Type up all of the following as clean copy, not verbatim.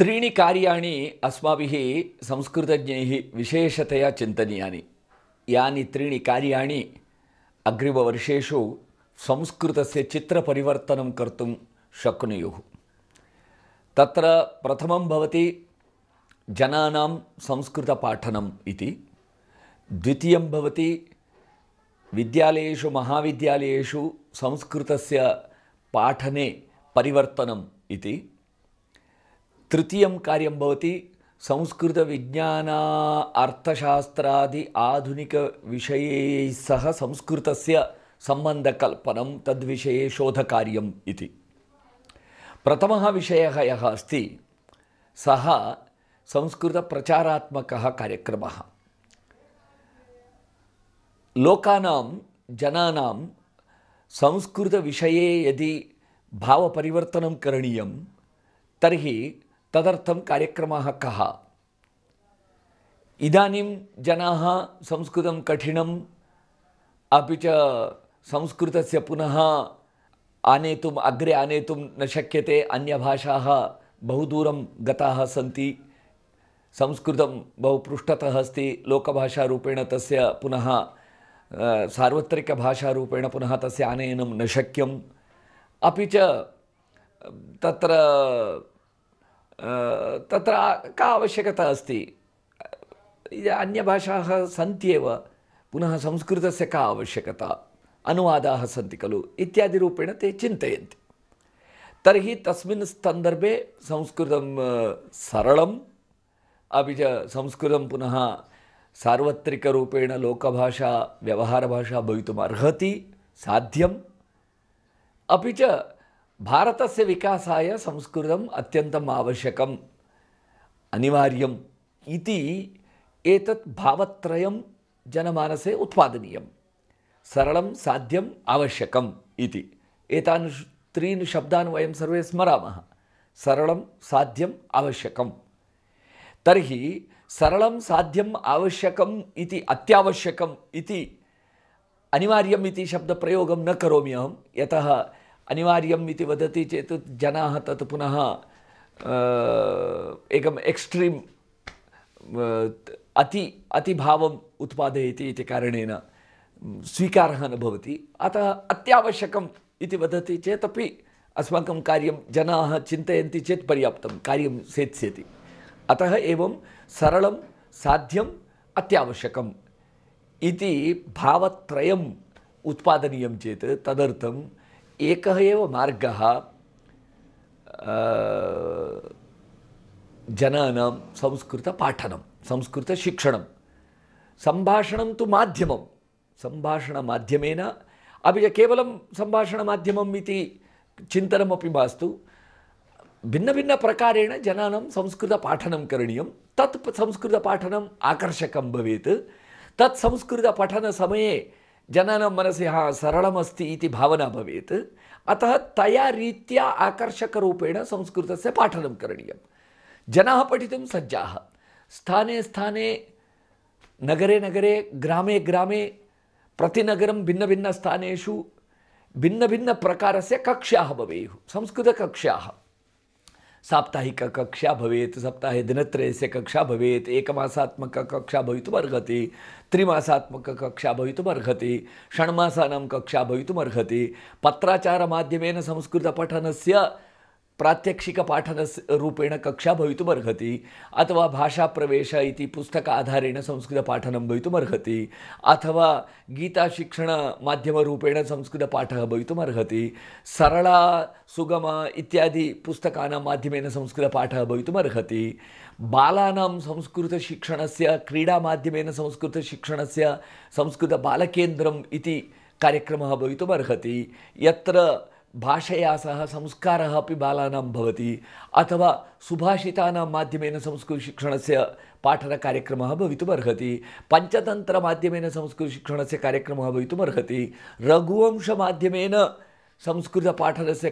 त्रीणि कार्याणि अस्माभिः संस्कृतज्ञैः विशेषतया चिन्तनीयानि। यानि त्रीणि कार्याणि अग्रिमवर्षेषु संस्कृतस्य चित्रपरिवर्तनं कर्तुं शक्नुयुः। तत्र प्रथमं भवति जनानां संस्कृतपाठनम् इति। द्वितीयं भवति विद्यालयेषु महाविद्यालयेषु संस्कृतस्य पाठने परिवर्तनम् इति। तृतीयं कार्यं भवति संस्कृतविज्ञान अर्थशास्त्रादि आधुनिकविषयैः सह संस्कृतस्य सम्बन्धकल्पनं तद्विषये शोधकार्यम् इति। प्रथमः विषयः यः अस्ति सः संस्कृतप्रचारात्मकः कार्यक्रमः। लोकानां जनानां संस्कृतविषये यदि भावपरिवर्तनं करणीयं तर्हि तदर्थं कार्यक्रमः कः? इदानीं जनाः संस्कृतं कठिनम् अपि च संस्कृतस्य पुनः अग्रे आनेतुं न शक्यते। अन्यभाषाः बहु दूरं गताः सन्ति। संस्कृतं बहु पृष्ठतः अस्ति। लोकभाषारूपेण तस्य पुनः सार्वत्रिकभाषारूपेण पुनः तस्य आनयनं न शक्यम्। अपि च तत्र का आवश्यकता अस्ति? अन्यभाषाः सन्त्येव, पुनः संस्कृतस्य का आवश्यकता? अनुवादाः सन्ति खलु इत्यादिरूपेण ते चिन्तयन्ति। तर्हि तस्मिन् सन्दर्भे संस्कृतं सरलम् अपि च संस्कृतं पुनः सार्वत्रिकरूपेण लोकभाषा व्यवहारभाषा भवितुम् अर्हति, साध्यम्। अपि च भारतस्य विकासाय संस्कृतम् अत्यन्तम् आवश्यकम्, अनिवार्यम् इति एतत् भावत्रयं जनमानसे उत्पादनीयं। सरलं, साध्यम्, आवश्यकम् इति एतान् त्रीन् शब्दान् वयं सर्वे स्मरामः। सरलं, साध्यम्, आवश्यकम्। तर्हि सरलं, साध्यम्, आवश्यकम् इति अत्यावश्यकम् इति अनिवार्यम् इति शब्दप्रयोगं न करोमि अहं। यतः अनिवार्यम् इति वदति चेत् जनाः तत् पुनः एकम् एक्स्ट्रीम् अतिभावम् उत्पादयति इति कारणेन स्वीकारः न भवति। अतः अत्यावश्यकम् इति वदति चेत् अपि अस्माकं कार्यं जनाः चिन्तयन्ति चेत् पर्याप्तं कार्यं सेत्स्यति। अतः एवं सरलं, साध्यम्, अत्यावश्यकम् इति भावत्रयम् उत्पादनीयं चेत् तदर्थम् एकः एव मार्गः जनानां संस्कृतपाठनं, संस्कृतशिक्षणं। सम्भाषणं तु माध्यमं, सम्भाषणमाध्यमेन अपि च केवलं सम्भाषणमाध्यमम् इति चिन्तनमपि मास्तु। भिन्नभिन्नप्रकारेण जनानां संस्कृतपाठनं करणीयं। तत् संस्कृतपाठनम् आकर्षकं भवेत्। तत् संस्कृतपठनसमये जनानां मनसि सरलमस्ति इति भावना भवेत्। अतः तया रीत्या आकर्षकरूपेण संस्कृतस्य पाठनं करणीयं। जनाः पठितुं सज्जाः। स्थाने स्थाने, नगरे नगरे, ग्रामे ग्रामे, प्रतिनगरं भिन्नभिन्नस्थानेषु भिन्नभिन्नप्रकारस्य कक्ष्याः भवेयुः, संस्कृतकक्ष्याः। साप्ताहिककक्षा भवेत्, सप्ताहे दिनत्रयस्य कक्षा भवेत्, एकमासात्मककक्षा भवितुम् अर्हति, त्रिमासात्मककक्षा भवितुम् अर्हति, षण्मासानां कक्षा भवितुम् अर्हति। पत्राचारमाध्यमेन संस्कृतपठनस्य प्रात्यक्षिकपाठनस्य रूपेण कक्षा भवितुम् अर्हति, अथवा भाषाप्रवेश इति पुस्तकाधारेण संस्कृतपाठनं भवितुम् अर्हति, अथवा गीताशिक्षणमाध्यमरूपेण संस्कृतपाठः भवितुम् अर्हति, सरला सुगमा इत्यादि पुस्तकानां माध्यमेन संस्कृतपाठः भवितुम् अर्हति। बालानां संस्कृतशिक्षणस्य, क्रीडामाध्यमेन संस्कृतशिक्षणस्य संस्कृतबालकेन्द्रम् इति कार्यक्रमः भवितुम् अर्हति, यत्र भाषया सह संस्कारः अपि बालानां भवति, अथवा सुभाषितानां माध्यमेन संस्कृतशिक्षणस्य पाठनकार्यक्रमः भवितुम् अर्हति, पञ्चतन्त्रमाध्यमेन संस्कृतशिक्षणस्य कार्यक्रमः भवितुम् अर्हति, रघुवंशमाध्यमेन संस्कृतपाठनस्य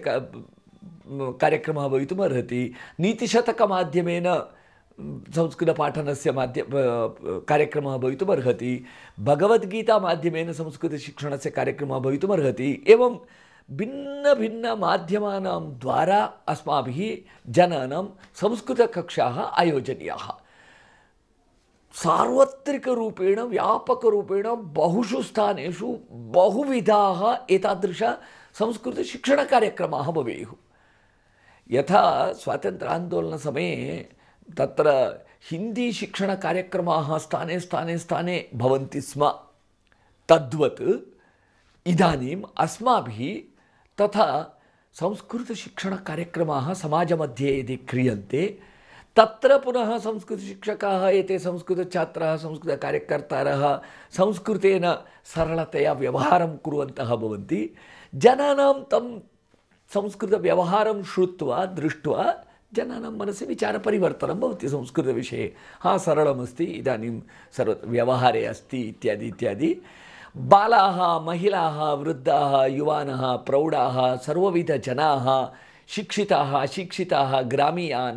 कार्यक्रमः भवितुम् अर्हति, नीतिशतकमाध्यमेन संस्कृतपाठनस्य कार्यक्रमः भवितुम् अर्हति, भगवद्गीतामाध्यमेन संस्कृतशिक्षणस्य कार्यक्रमः भवितुम् अर्हति। एवं भिन्नभिन्नमाध्यमानां द्वारा अस्माभिः जनानां संस्कृतकक्षाः आयोजनीयाः। सार्वत्रिकरूपेण व्यापकरूपेण बहुषु स्थानेषु बहुविधाः एतादृश संस्कृतशिक्षणकार्यक्रमाः भवेयुः। यथा स्वातन्त्र्यान्दोलनसमये तत्र हिन्दीशिक्षणकार्यक्रमाः स्थाने स्थाने स्थाने भवन्ति स्म, तद्वत् इदानीम् अस्माभिः तथा संस्कृतशिक्षणकार्यक्रमाः समाजमध्ये यदि क्रियन्ते तत्र पुनः संस्कृतशिक्षकाः एते संस्कृतछात्राः संस्कृतकार्यकर्तारः संस्कृतेन सरलतया व्यवहारं कुर्वन्तः भवन्ति। जनानां तं संस्कृतव्यवहारं श्रुत्वा दृष्ट्वा जनानां मनसि विचारपरिवर्तनं भवति संस्कृतविषये। सरलमस्ति, इदानीं व्यवहारे अस्ति इत्यादि इत्यादि। बालाः, महिलाः, वृद्धाः, युवानः, प्रौढाः, सर्वविधजनाः, शिक्षिताः, अशिक्षिताः, ग्रामीयाः,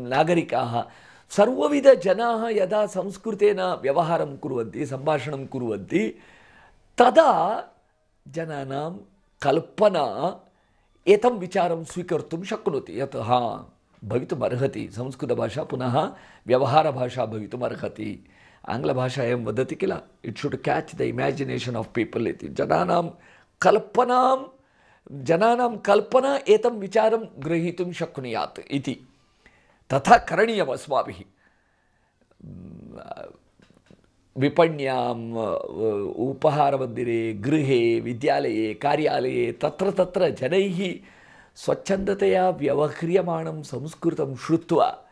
नागरिकाः, सर्वविधजनाः यदा संस्कृतेन व्यवहारं कुर्वन्ति, सम्भाषणं कुर्वन्ति, तदा जनानां कल्पना एतं विचारं स्वीकर्तुं शक्नोति यत् भवितुमर्हति, संस्कृतभाषा पुनः व्यवहारभाषा भवितुमर्हति। आङ्ग्लभाषायां वदति किल, it should catch the imagination of people इति। जनानां कल्पना एतं विचारं ग्रहीतुं शक्नुयात् इति। तथा करणीयम् अस्माभिः। विपण्याम्, उपहारमन्दिरे, गृहे, विद्यालये, कार्यालये तत्र तत्र जनैः स्वच्छन्दतया व्यवह्रियमाणं संस्कृतं श्रुत्वा,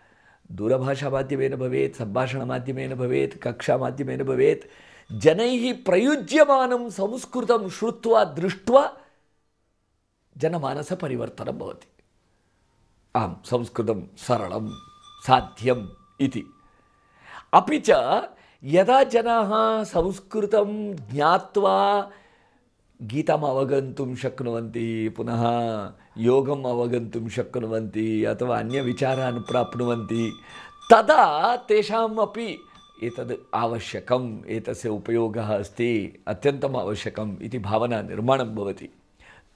दूरभाषामाध्यमेन भवेत्, सम्भाषणमाध्यमेन भवेत्, कक्षामाध्यमेन भवेत्, जनैः प्रयुज्यमानं संस्कृतं श्रुत्वा दृष्ट्वा जनमानसपरिवर्तनं भवति। संस्कृतं सरलं साध्यम् इति। अपि च यदा जनाः संस्कृतं ज्ञात्वा गीताम् अवगन्तुं शक्नुवन्ति, पुनः योगम् अवगन्तुं शक्नुवन्ति अथवा अन्यविचारान् प्राप्नुवन्ति, तदा तेषाम् अपि एतद् आवश्यकम्, एतस्य उपयोगः अस्ति, अत्यन्तम् आवश्यकम् इति भावना निर्माणं भवति।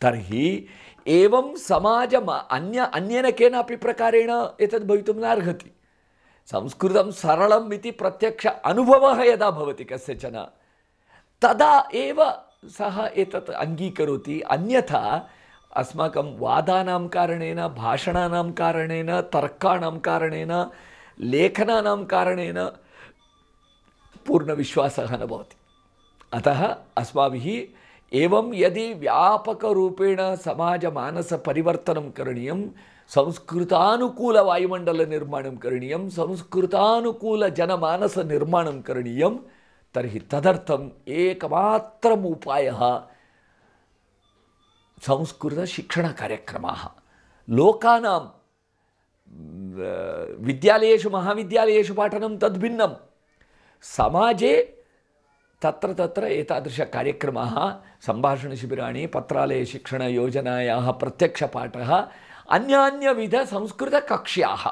तर्हि एवं समाजम् अन्येन केनापि प्रकारेण एतद् भवितुं नार्हति। संस्कृतं सरलम् इति प्रत्यक्ष अनुभवः यदा भवति कस्यचन, तदा एव सः एतत् अङ्गीकरोति। अन्यथा अस्माकं वादानां कारणेन, भाषणानां कारणेन, तर्काणां कारणेन, लेखनानां कारणेन पूर्णविश्वासः न भवति। अतः अस्माभिः एवं यदि व्यापकरूपेण समाजमानसपरिवर्तनं करणीयं, संस्कृतानुकूलवायुमण्डलनिर्माणं करणीयं, संस्कृतानुकूलजनमानसनिर्माणं करणीयं, तर्हि तदर्थम् एकमात्रम् उपायः संस्कृतशिक्षणकार्यक्रमाः। लोकानां विद्यालयेषु महाविद्यालयेषु पाठनं तद्भिन्नं, समाजे तत्र तत्र एतादृशकार्यक्रमाः, सम्भाषणशिबिराणि, पत्रालयशिक्षणयोजनायाः प्रत्यक्षपाठः, अन्यान्यविधसंस्कृतकक्ष्याः,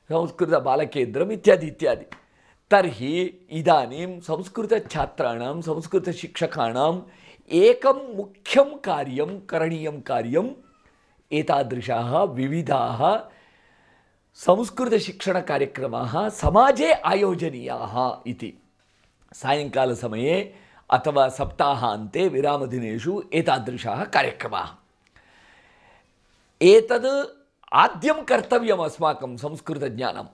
संस्कृतबालकेन्द्रम् इत्यादि इत्यादि। तर्हि इदानीं संस्कृतछात्राणां, संस्कृतशिक्षकाणाम् एकं मुख्यं कार्यं, करणीयं कार्यम्, एतादृशाः विविधाः संस्कृतशिक्षणकार्यक्रमाः समाजे आयोजनीयाः इति। सायङ्कालसमये अथवा सप्ताहान्ते विरामदिनेषु एतादृशाः कार्यक्रमाः। एतद् आद्यं कर्तव्यम् अस्माकं संस्कृतज्ञानं।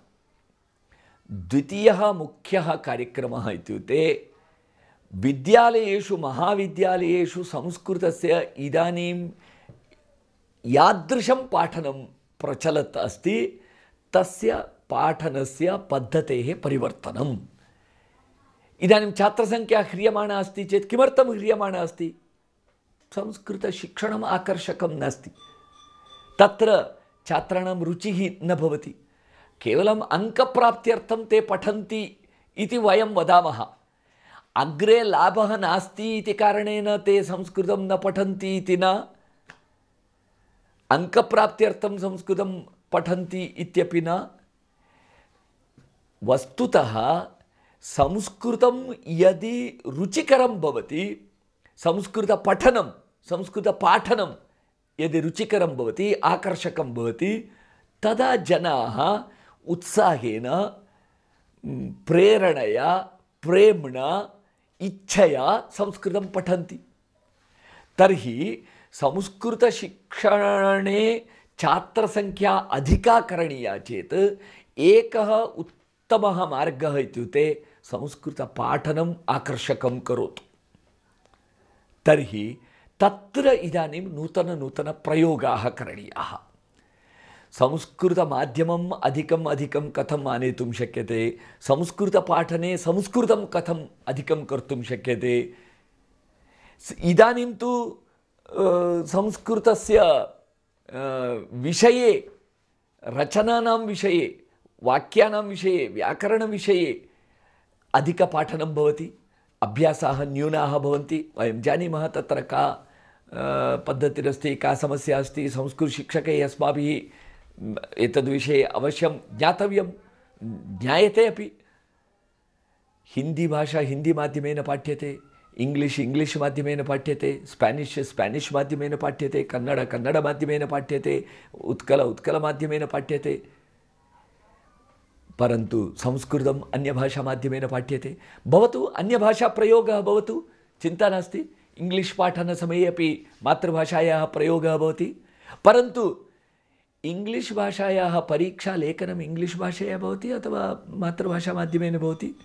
द्वितीयः मुख्यः कार्यक्रमः इत्युक्ते विद्यालयेषु महाविद्यालयेषु संस्कृतस्य इदानीं यादृशं पाठनं प्रचलत् अस्ति तस्य पाठनस्य पद्धतेः परिवर्तनम्। इदानीं छात्रसंख्या ह्रियमाणा अस्ति चेत् किमर्थं ह्रियमाणा अस्ति? संस्कृतशिक्षणम् आकर्षकं नास्ति, तत्र छात्राणां रुचिः न भवति, केवलम् अङ्कप्राप्त्यर्थं ते पठन्ति इति वयं वदामः। अग्रे लाभः नास्ति इति कारणेन ते संस्कृतं न पठन्ति इति न, अङ्कप्राप्त्यर्थं संस्कृतं पठन्ति इत्यपि न। वस्तुतः संस्कृतं यदि रुचिकरं भवति, संस्कृतपठनं संस्कृतपाठनं यदि रुचिकरं भवति, आकर्षकं भवति, तदा जनाः उत्साहेन, प्रेरणया, प्रेम्णा, इच्छया संस्कृतं पठन्ति। तर्हि संस्कृतशिक्षणे छात्रसंख्या अधिका करणीया चेत् एकः उत्तमः मार्गः इत्युक्ते संस्कृतपाठनम् आकर्षकं करोतु। तर्हि तत्र इदानीं नूतनप्रयोगाः करणीयाः। संस्कृतमाध्यमम् अधिकं कथम् आनेतुं शक्यते, संस्कृतपाठने संस्कृतं कथम् अधिकं कर्तुं शक्यते। इदानीं तु संस्कृतस्य विषये, रचनानां विषये, वाक्यानां विषये, व्याकरणविषये अधिकपाठनं भवति, अभ्यासाः न्यूनाः भवन्ति। वयं जानीमः तत्र का पद्धतिरस्ति, का समस्या अस्ति। संस्कृतशिक्षकैः अस्माभिः एतद्विषये अवश्यं ज्ञातव्यं, ज्ञायते अपि। हिंदी भाषा हिंदी माध्यमेन पाठ्यते, इंग्लिश माध्यमेन पाठ्यते, स्पेनिश माध्यमेन पाठ्यते, कन्नड माध्यमेन पाठ्यते, उत्कल माध्यमेन पाठ्यते। परन्तु संस्कृतम् अन्यभाषा माध्यमेन पाठ्यते। भवतु अन्यभाषा प्रयोगः भवतु, चिन्ता नास्ति। इंग्लिश पाठनसमये अपि मातृभाषायाः प्रयोगः भवति। परन्तु इंग्लिश भाषायाः परीक्षा लेखनम् इंग्लिश भाषया भवति अथवा मातृभाषा माध्यमेन भवति।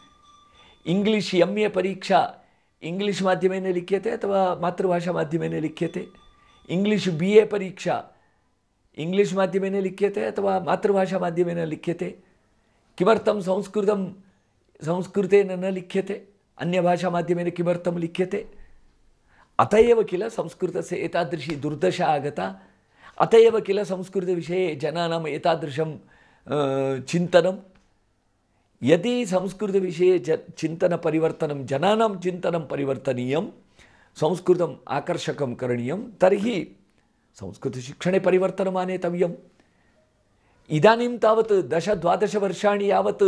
इंग्लिश MA परीक्षा इंग्लिश माध्यमेन लिख्यते अथवा मातृभाषा माध्यमेन लिख्यते। इंग्लिश BA परीक्षा इंग्लिश माध्यमेन लिख्यते अथवा मातृभाषा माध्यमेन लिख्यते। किमर्थं संस्कृतेन न लिख्यते, अन्यभाषा माध्यमेन किमर्थं लिख्यते? अत एव किल संस्कृतस्य एतादृशी दुर्दशा आगता। अत एव किल संस्कृतविषये जनानाम् एतादृशं चिन्तनं। यदि संस्कृतविषये चिन्तनपरिवर्तनं, जनानां चिन्तनं परिवर्तनीयं, संस्कृतम् आकर्षकं करणीयं, तर्हि संस्कृतशिक्षणे परिवर्तनम् आनेतव्यम्। इदानीं तावत् 10-12 वर्षाणि यावत्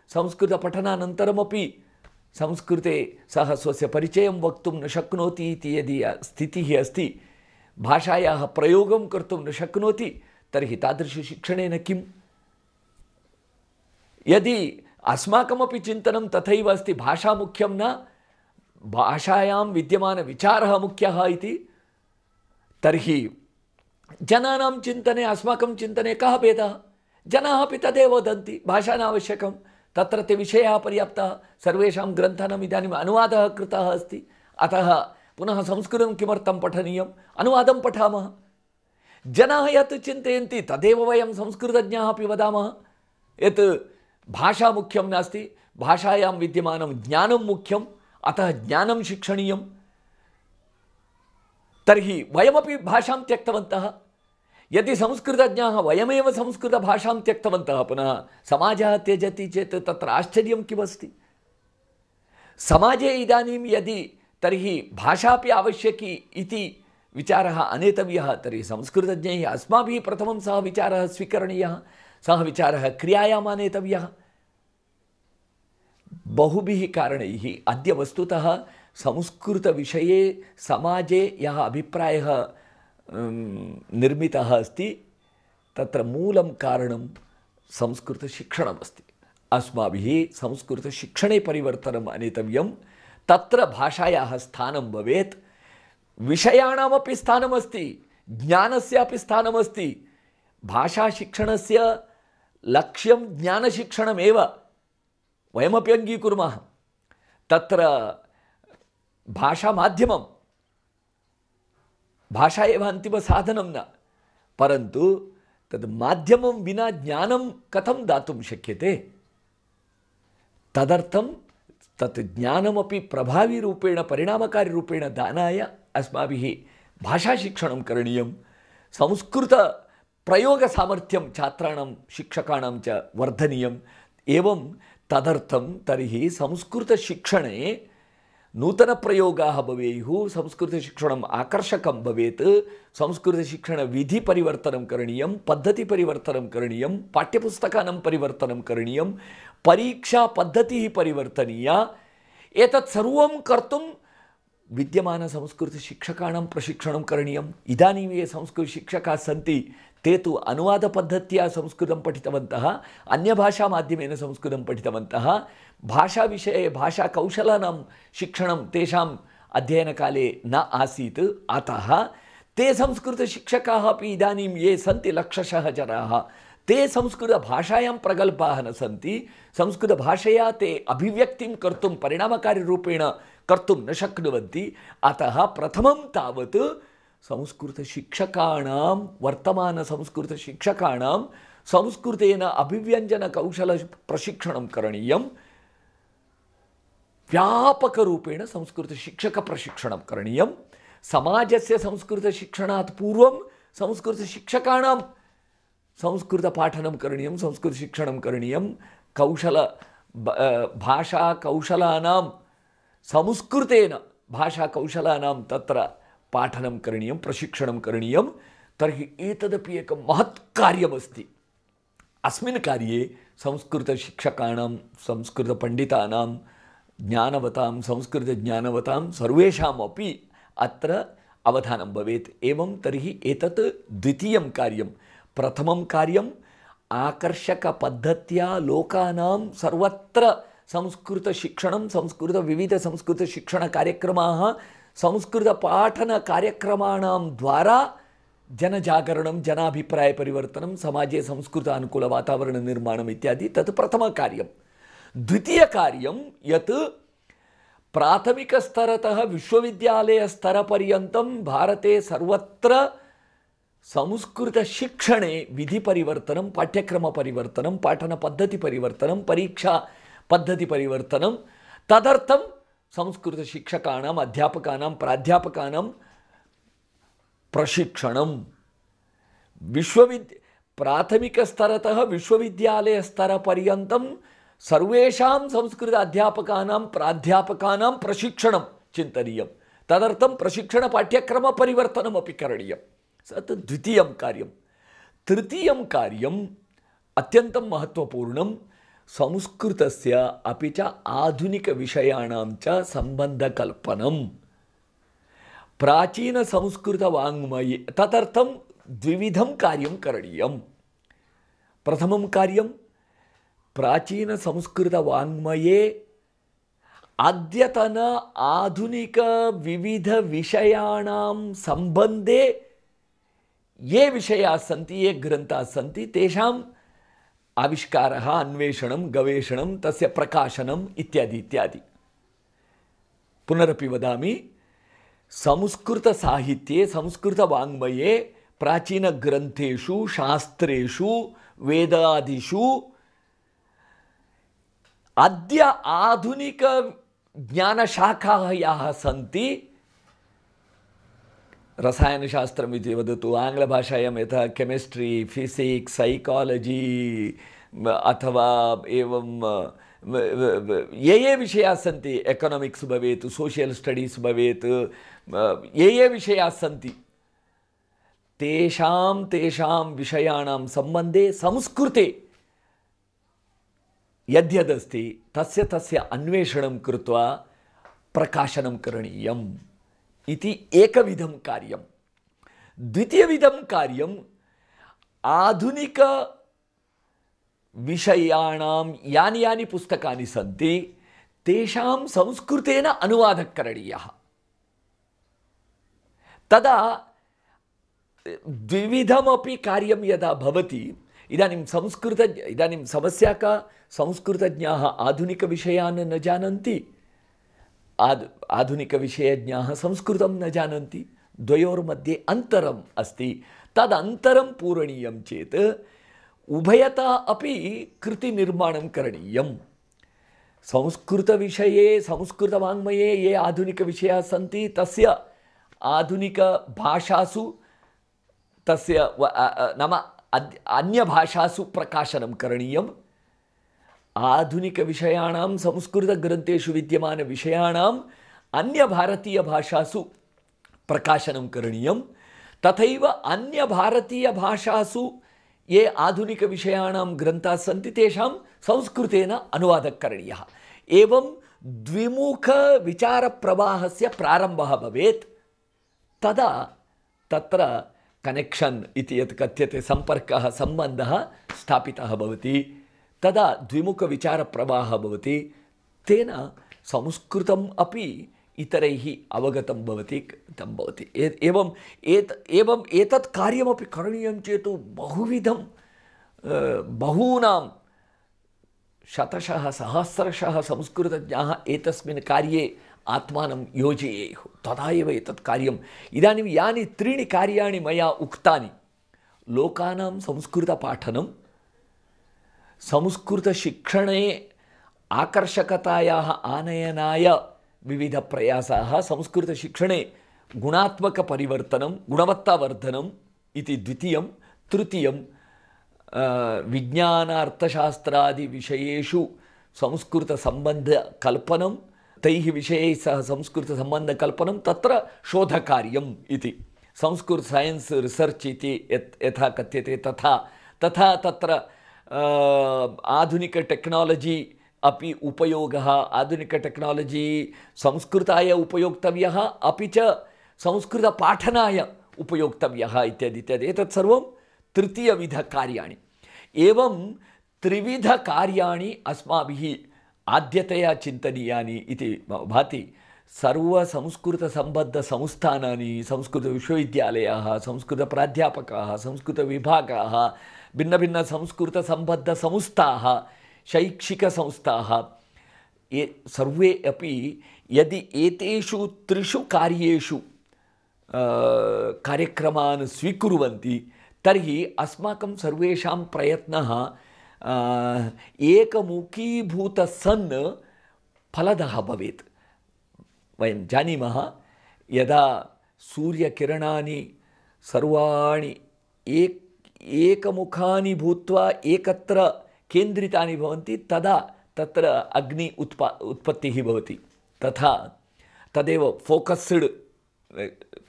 संस्कृतपठनानन्तरमपि संस्कृते सः स्वस्य परिचयं वक्तुं न शक्नोति इति यदि स्थितिः अस्ति, भाषायाः प्रयोगं कर्तुं न शक्नोति, तर्हि तादृशशिक्षणेन किम्? यदि अस्माकमपि चिन्तनं तथैव अस्ति, भाषा मुख्यं न, भाषायां विद्यमानविचारः मुख्यः इति, तर्हि जनानां चिन्तने अस्माकं चिन्तने कः भेदः? जनाः अपि तदेव वदन्ति, भाषा नावश्यकं, तत्र ते विषयाः पर्याप्ताः, सर्वेषां ग्रन्थानाम् इदानीम् अनुवादः कृतः अस्ति, अतः पुनः संस्कृतं किमर्थं पठनीयम्? अनुवादं पठामः। जनाः यत् चिन्तयन्ति तदेव वयं संस्कृतज्ञाः अपि वदामः, यत् भाषा मुख्यं नास्ति, भाषायां विद्यमानं ज्ञानं मुख्यम्, अतः ज्ञानं शिक्षणीयम्। तर्हि वयमपि भाषां त्यक्तवन्तः। यदि संस्कृतज्ञाः वयमेव संस्कृतभाषां त्यक्तवन्तः, पुनः समाजः त्यजति चेत् तत्र आश्चर्यं किमस्ति? समाजे इदानीं यदि तर्हि भाषापि आवश्यकी इति विचारः आनेतव्यः, तर्हि संस्कृतज्ञैः अस्माभिः प्रथमं सः विचारः स्वीकरणीयः, सः विचारः क्रियायाम् आनेतव्यः। बहुभिः कारणैः अद्य वस्तुतः संस्कृतविषये समाजे यः अभिप्रायः निर्मितः अस्ति, तत्र मूलं कारणं संस्कृतशिक्षणमस्ति। अस्माभिः संस्कृतशिक्षणे परिवर्तनम् आनेतव्यं। तत्र भाषायाः स्थानं भवेत्, विषयाणामपि स्थानमस्ति, ज्ञानस्यापि स्थानमस्ति। भाषाशिक्षणस्य लक्ष्यं ज्ञानशिक्षणमेव, वयमपि अङ्गीकुर्मः। तत्र भाषामाध्यमं, भाषा एव अन्तिमसाधनं न, परन्तु तद् माध्यमं विना ज्ञानं कथं दातुं शक्यते? तदर्थं तत् ज्ञानमपि प्रभावीरूपेण, परिणामकारिरूपेण दानाय अस्माभिः भाषाशिक्षणं करणीयं। संस्कृतप्रयोगसामर्थ्यं छात्राणां, शिक्षकाणां च वर्धनीयम्। एवं तदर्थं तर्हि संस्कृतशिक्षणे नूतनप्रयोगाः भवेयुः, संस्कृतशिक्षणम् आकर्षकं भवेत्, संस्कृतशिक्षणविधिपरिवर्तनं करणीयं, पद्धतिपरिवर्तनं करणीयं, पाठ्यपुस्तकानां परिवर्तनं करणीयं, परीक्षापद्धतिः परिवर्तनीया। एतत् सर्वं कर्तुं विद्यमानसंस्कृतशिक्षकाणां प्रशिक्षणं करणीयम्। इदानीं ये संस्कृतशिक्षकाः सन्ति ते तु अनुवादपद्धत्या संस्कृतं पठितवन्तः, अन्यभाषामाध्यमेन संस्कृतं पठितवन्तः। भाषाविषये भाषाकौशलानां शिक्षणं तेषाम् अध्ययनकाले न आसीत्, अतः ते संस्कृतशिक्षकाः अपि इदानीं ये सन्ति लक्षशः जनाः, ते संस्कृतभाषायां प्रगल्भाः न सन्ति। संस्कृतभाषया ते अभिव्यक्तिं कर्तुं परिणामकारिरूपेण कर्तुं न शक्नुवन्ति। अतः प्रथमं तावत् संस्कृतशिक्षकाणां, वर्तमानसंस्कृतशिक्षकाणां संस्कृतेन अभिव्यञ्जनकौशलप्रशिक्षणं करणीयं। व्यापकरूपेण संस्कृतशिक्षकप्रशिक्षणं करणीयं। समाजस्य संस्कृतशिक्षणात् पूर्वं संस्कृतशिक्षकाणां संस्कृतपाठनं करणीयं, संस्कृतशिक्षणं करणीयं। भाषाकौशलानां संस्कृतेन भाषाकौशलानां तत्र पाठनं करणीयं, प्रशिक्षणं करणीयं। तर्हि एतदपि एकं महत् कार्यमस्ति। अस्मिन् कार्ये संस्कृतशिक्षकाणां, संस्कृतपण्डितानां, ज्ञानवतां, संस्कृतज्ञानवतां सर्वेषामपि अत्र अवधानं भवेत्। एवं तर्हि एतत् द्वितीयं कार्यं। प्रथमं कार्यम् आकर्षकपद्धत्या लोकानां सर्वत्र संस्कृतशिक्षणं, विविधसंस्कृतशिक्षणकार्यक्रमाः, संस्कृतपाठनकार्यक्रमाणां द्वारा जनजागरणं, जनाभिप्रायपरिवर्तनं, समाजे संस्कृतानुकूलवातावरणनिर्माणम् इत्यादि तत् प्रथमकार्यं। द्वितीयकार्यं यत् प्राथमिकस्तरतः विश्वविद्यालयस्तरपर्यन्तं भारते सर्वत्र संस्कृतशिक्षणे विधिपरिवर्तनं, पाठ्यक्रमपरिवर्तनं, पाठनपद्धतिपरिवर्तनं, परीक्षापद्धतिपरिवर्तनं, तदर्थं संस्कृतशिक्षकाणाम्, अध्यापकानां, प्राध्यापकानां प्रशिक्षणं। प्राथमिकस्तरतः विश्वविद्यालयस्तरपर्यन्तं सर्वेषां संस्कृत अध्यापकानां, प्राध्यापकानां प्रशिक्षणं चिन्तनीयं। तदर्थं प्रशिक्षणपाठ्यक्रमपरिवर्तनमपि करणीयं। तत् द्वितीयं कार्यं। तृतीयं कार्यम् अत्यन्तं महत्त्वपूर्णं, संस्कृतस्य अपि च आधुनिकविषयाणां च सम्बन्धकल्पनं। प्राचीनसंस्कृतवाङ्मये तदर्थं द्विविधं कार्यं करणीयं। प्रथमं कार्यं प्राचीनसंस्कृतवाङ्मये अद्यतन आधुनिकविविधविषयाणां सम्बन्धे ये विषयाः सन्ति, ये ग्रन्थाः सन्ति, तेषाम् आविष्कारः, अन्वेषणं, गवेषणं, तस्य प्रकाशनम् इत्यादि इत्यादि। पुनरपि वदामि, संस्कृतसाहित्ये, संस्कृतवाङ्मये, प्राचीनग्रन्थेषु, शास्त्रेषु, वेदादिषु अद्य आधुनिकज्ञानशाखाः याः सन्ति, रसायनशास्त्रम् इति वदतु, आङ्ग्लभाषायां यथा केमिस्ट्री, फिजिक्स्, सैकालजी अथवा एवं ये विषयाः सन्ति, एकोनामिक्स् भवेत्, सोशियल् स्टडीस् भवेत्, ये विषयाः सन्ति, तेषां विषयाणां सम्बन्धे संस्कृते यद्यदस्ति तस्य अन्वेषणं कृत्वा प्रकाशनं करणीयम् इति एकविधं कार्यं। द्वितीयविधं कार्यम् आधुनिकविषयाणां यानि पुस्तकानि सन्ति तेषां संस्कृतेन अनुवादः करणीयः। तदा द्विविधमपि कार्यं यदा भवति, इदानीं समस्या का, संस्कृतज्ञाः आधुनिकविषयान् न जानन्ति, आधुनिकविषयज्ञाः संस्कृतं न जानन्ति, द्वयोर्मध्ये अन्तरम् अस्ति। तदन्तरं पूरणीयं चेत् उभयता अपि कृतिनिर्माणं करणीयं। संस्कृतविषये, संस्कृतवाङ्मये ये आधुनिकविषयाः सन्ति तस्य आधुनिकभाषासु, तस्य नाम अन्यभाषासु प्रकाशनं करणीयम्। आधुनिकविषयाणां, संस्कृतग्रन्थेषु विद्यमानविषयाणाम् अन्यभारतीयभाषासु प्रकाशनं करणीयं। तथैव अन्यभारतीयभाषासु ये आधुनिकविषयाणां ग्रन्थाः सन्ति तेषां संस्कृतेन अनुवादः करणीयः। एवं द्विमुखविचारप्रवाहस्य प्रारम्भः भवेत्, तदा तत्र कनेक्षन् इति यत् कथ्यते सम्पर्कः सम्बन्धः स्थापितः भवति, तदा द्विमुखविचारप्रवाहः भवति, तेन संस्कृतम् अपि इतरैः अवगतं भवति तं भवति। एवम् एतत् कार्यमपि करणीयं चेत् बहुविधं बहूनां शतशः सहस्रशः संस्कृतज्ञाः एतस्मिन् कार्ये आत्मानं योजयेयुः, तदा एव एतत् कार्यम्। इदानीं यानि त्रीणि कार्याणि मया उक्तानि, लोकानां संस्कृतपाठनं, संस्कृतशिक्षणे आकर्षकतायाः आनयनाय विविधप्रयासाः, संस्कृतशिक्षणे गुणात्मकपरिवर्तनं, गुणवत्तावर्धनम् इति द्वितीयं। तृतीयं विज्ञानार्थशास्त्रादिविषयेषु संस्कृतसम्बन्धकल्पनं, तैः विषयैः सह संस्कृतसम्बन्धकल्पनं, तत्र शोधकार्यम् इति। संस्कृत सैन्स् रिसर्च् इति यथा कथ्यते तथा तत्र आधुनिक टेक्नालजी अपि उपयोगः, आधुनिक टेक्नालजी संस्कृताय उपयोक्तव्यः, अपि च संस्कृतपाठनाय उपयोक्तव्यः इत्यादि इत्यादि। एतत् सर्वं तृतीयविधकार्याणि। एवं त्रिविधकार्याणि अस्माभिः आद्यतया चिन्तनीयानि इति भाति। सर्वसंस्कृतसम्बद्धसंस्थानानि, संस्कृतविश्वविद्यालयाः, संस्कृतप्राध्यापकाः, संस्कृतविभागाः, भिन्नभिन्नसंस्कृतसम्बद्धसंस्थाः, शैक्षिकसंस्थाः, ये सर्वे अपि यदि एतेषु त्रिषु कार्येषु कार्यक्रमान् स्वीकुर्वन्ति, तर्हि अस्माकं सर्वेषां प्रयत्नः एकमुखीभूतः सन् फलदः भवेत्। वयं जानीमः, यदा सूर्यकिरणानि सर्वाणि एकमुखानि भूत्वा एकत्र केन्द्रितानि भवन्ति, तदा तत्र अग्नि उत्पत्तिः भवति। तथा तदेव फोकस्ड्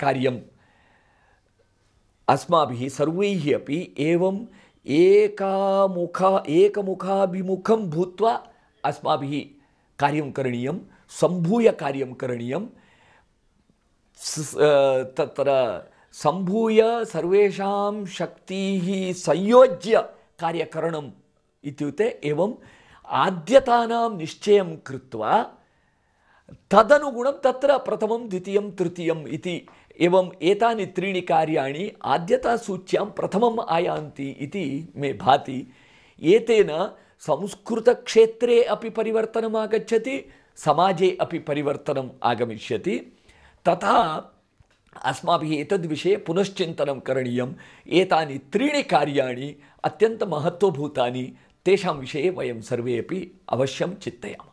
कार्यम् अस्माभिः सर्वैः अपि एवं एकमुखाभिमुखं भूत्वा अस्माभिः कार्यं करणीयं, सम्भूय कार्यं करणीयं। तत्र सम्भूय सर्वेषां शक्तिः संयोज्य कार्यकरणम् इत्युक्ते एवं आद्यतानां निश्चयं कृत्वा तदनुगुणं तत्र प्रथमं, द्वितीयं, तृतीयम् इति एवं एतानि त्रीणि कार्याणि आद्यतासूच्यां प्रथमम् आयान्ति इति मे भाति। एतेन संस्कृतक्षेत्रे अपि परिवर्तनम् आगच्छति, समाजे अपि परिवर्तनम् आगमिष्यति। तथा अस्माभिः एतद्विषये पुनश्चिन्तनं करणीयम्। एतानि त्रीणि कार्याणि अत्यन्तमहत्त्वभूतानि, तेषां विषये वयं सर्वे अपि अवश्यं चिन्तयामः।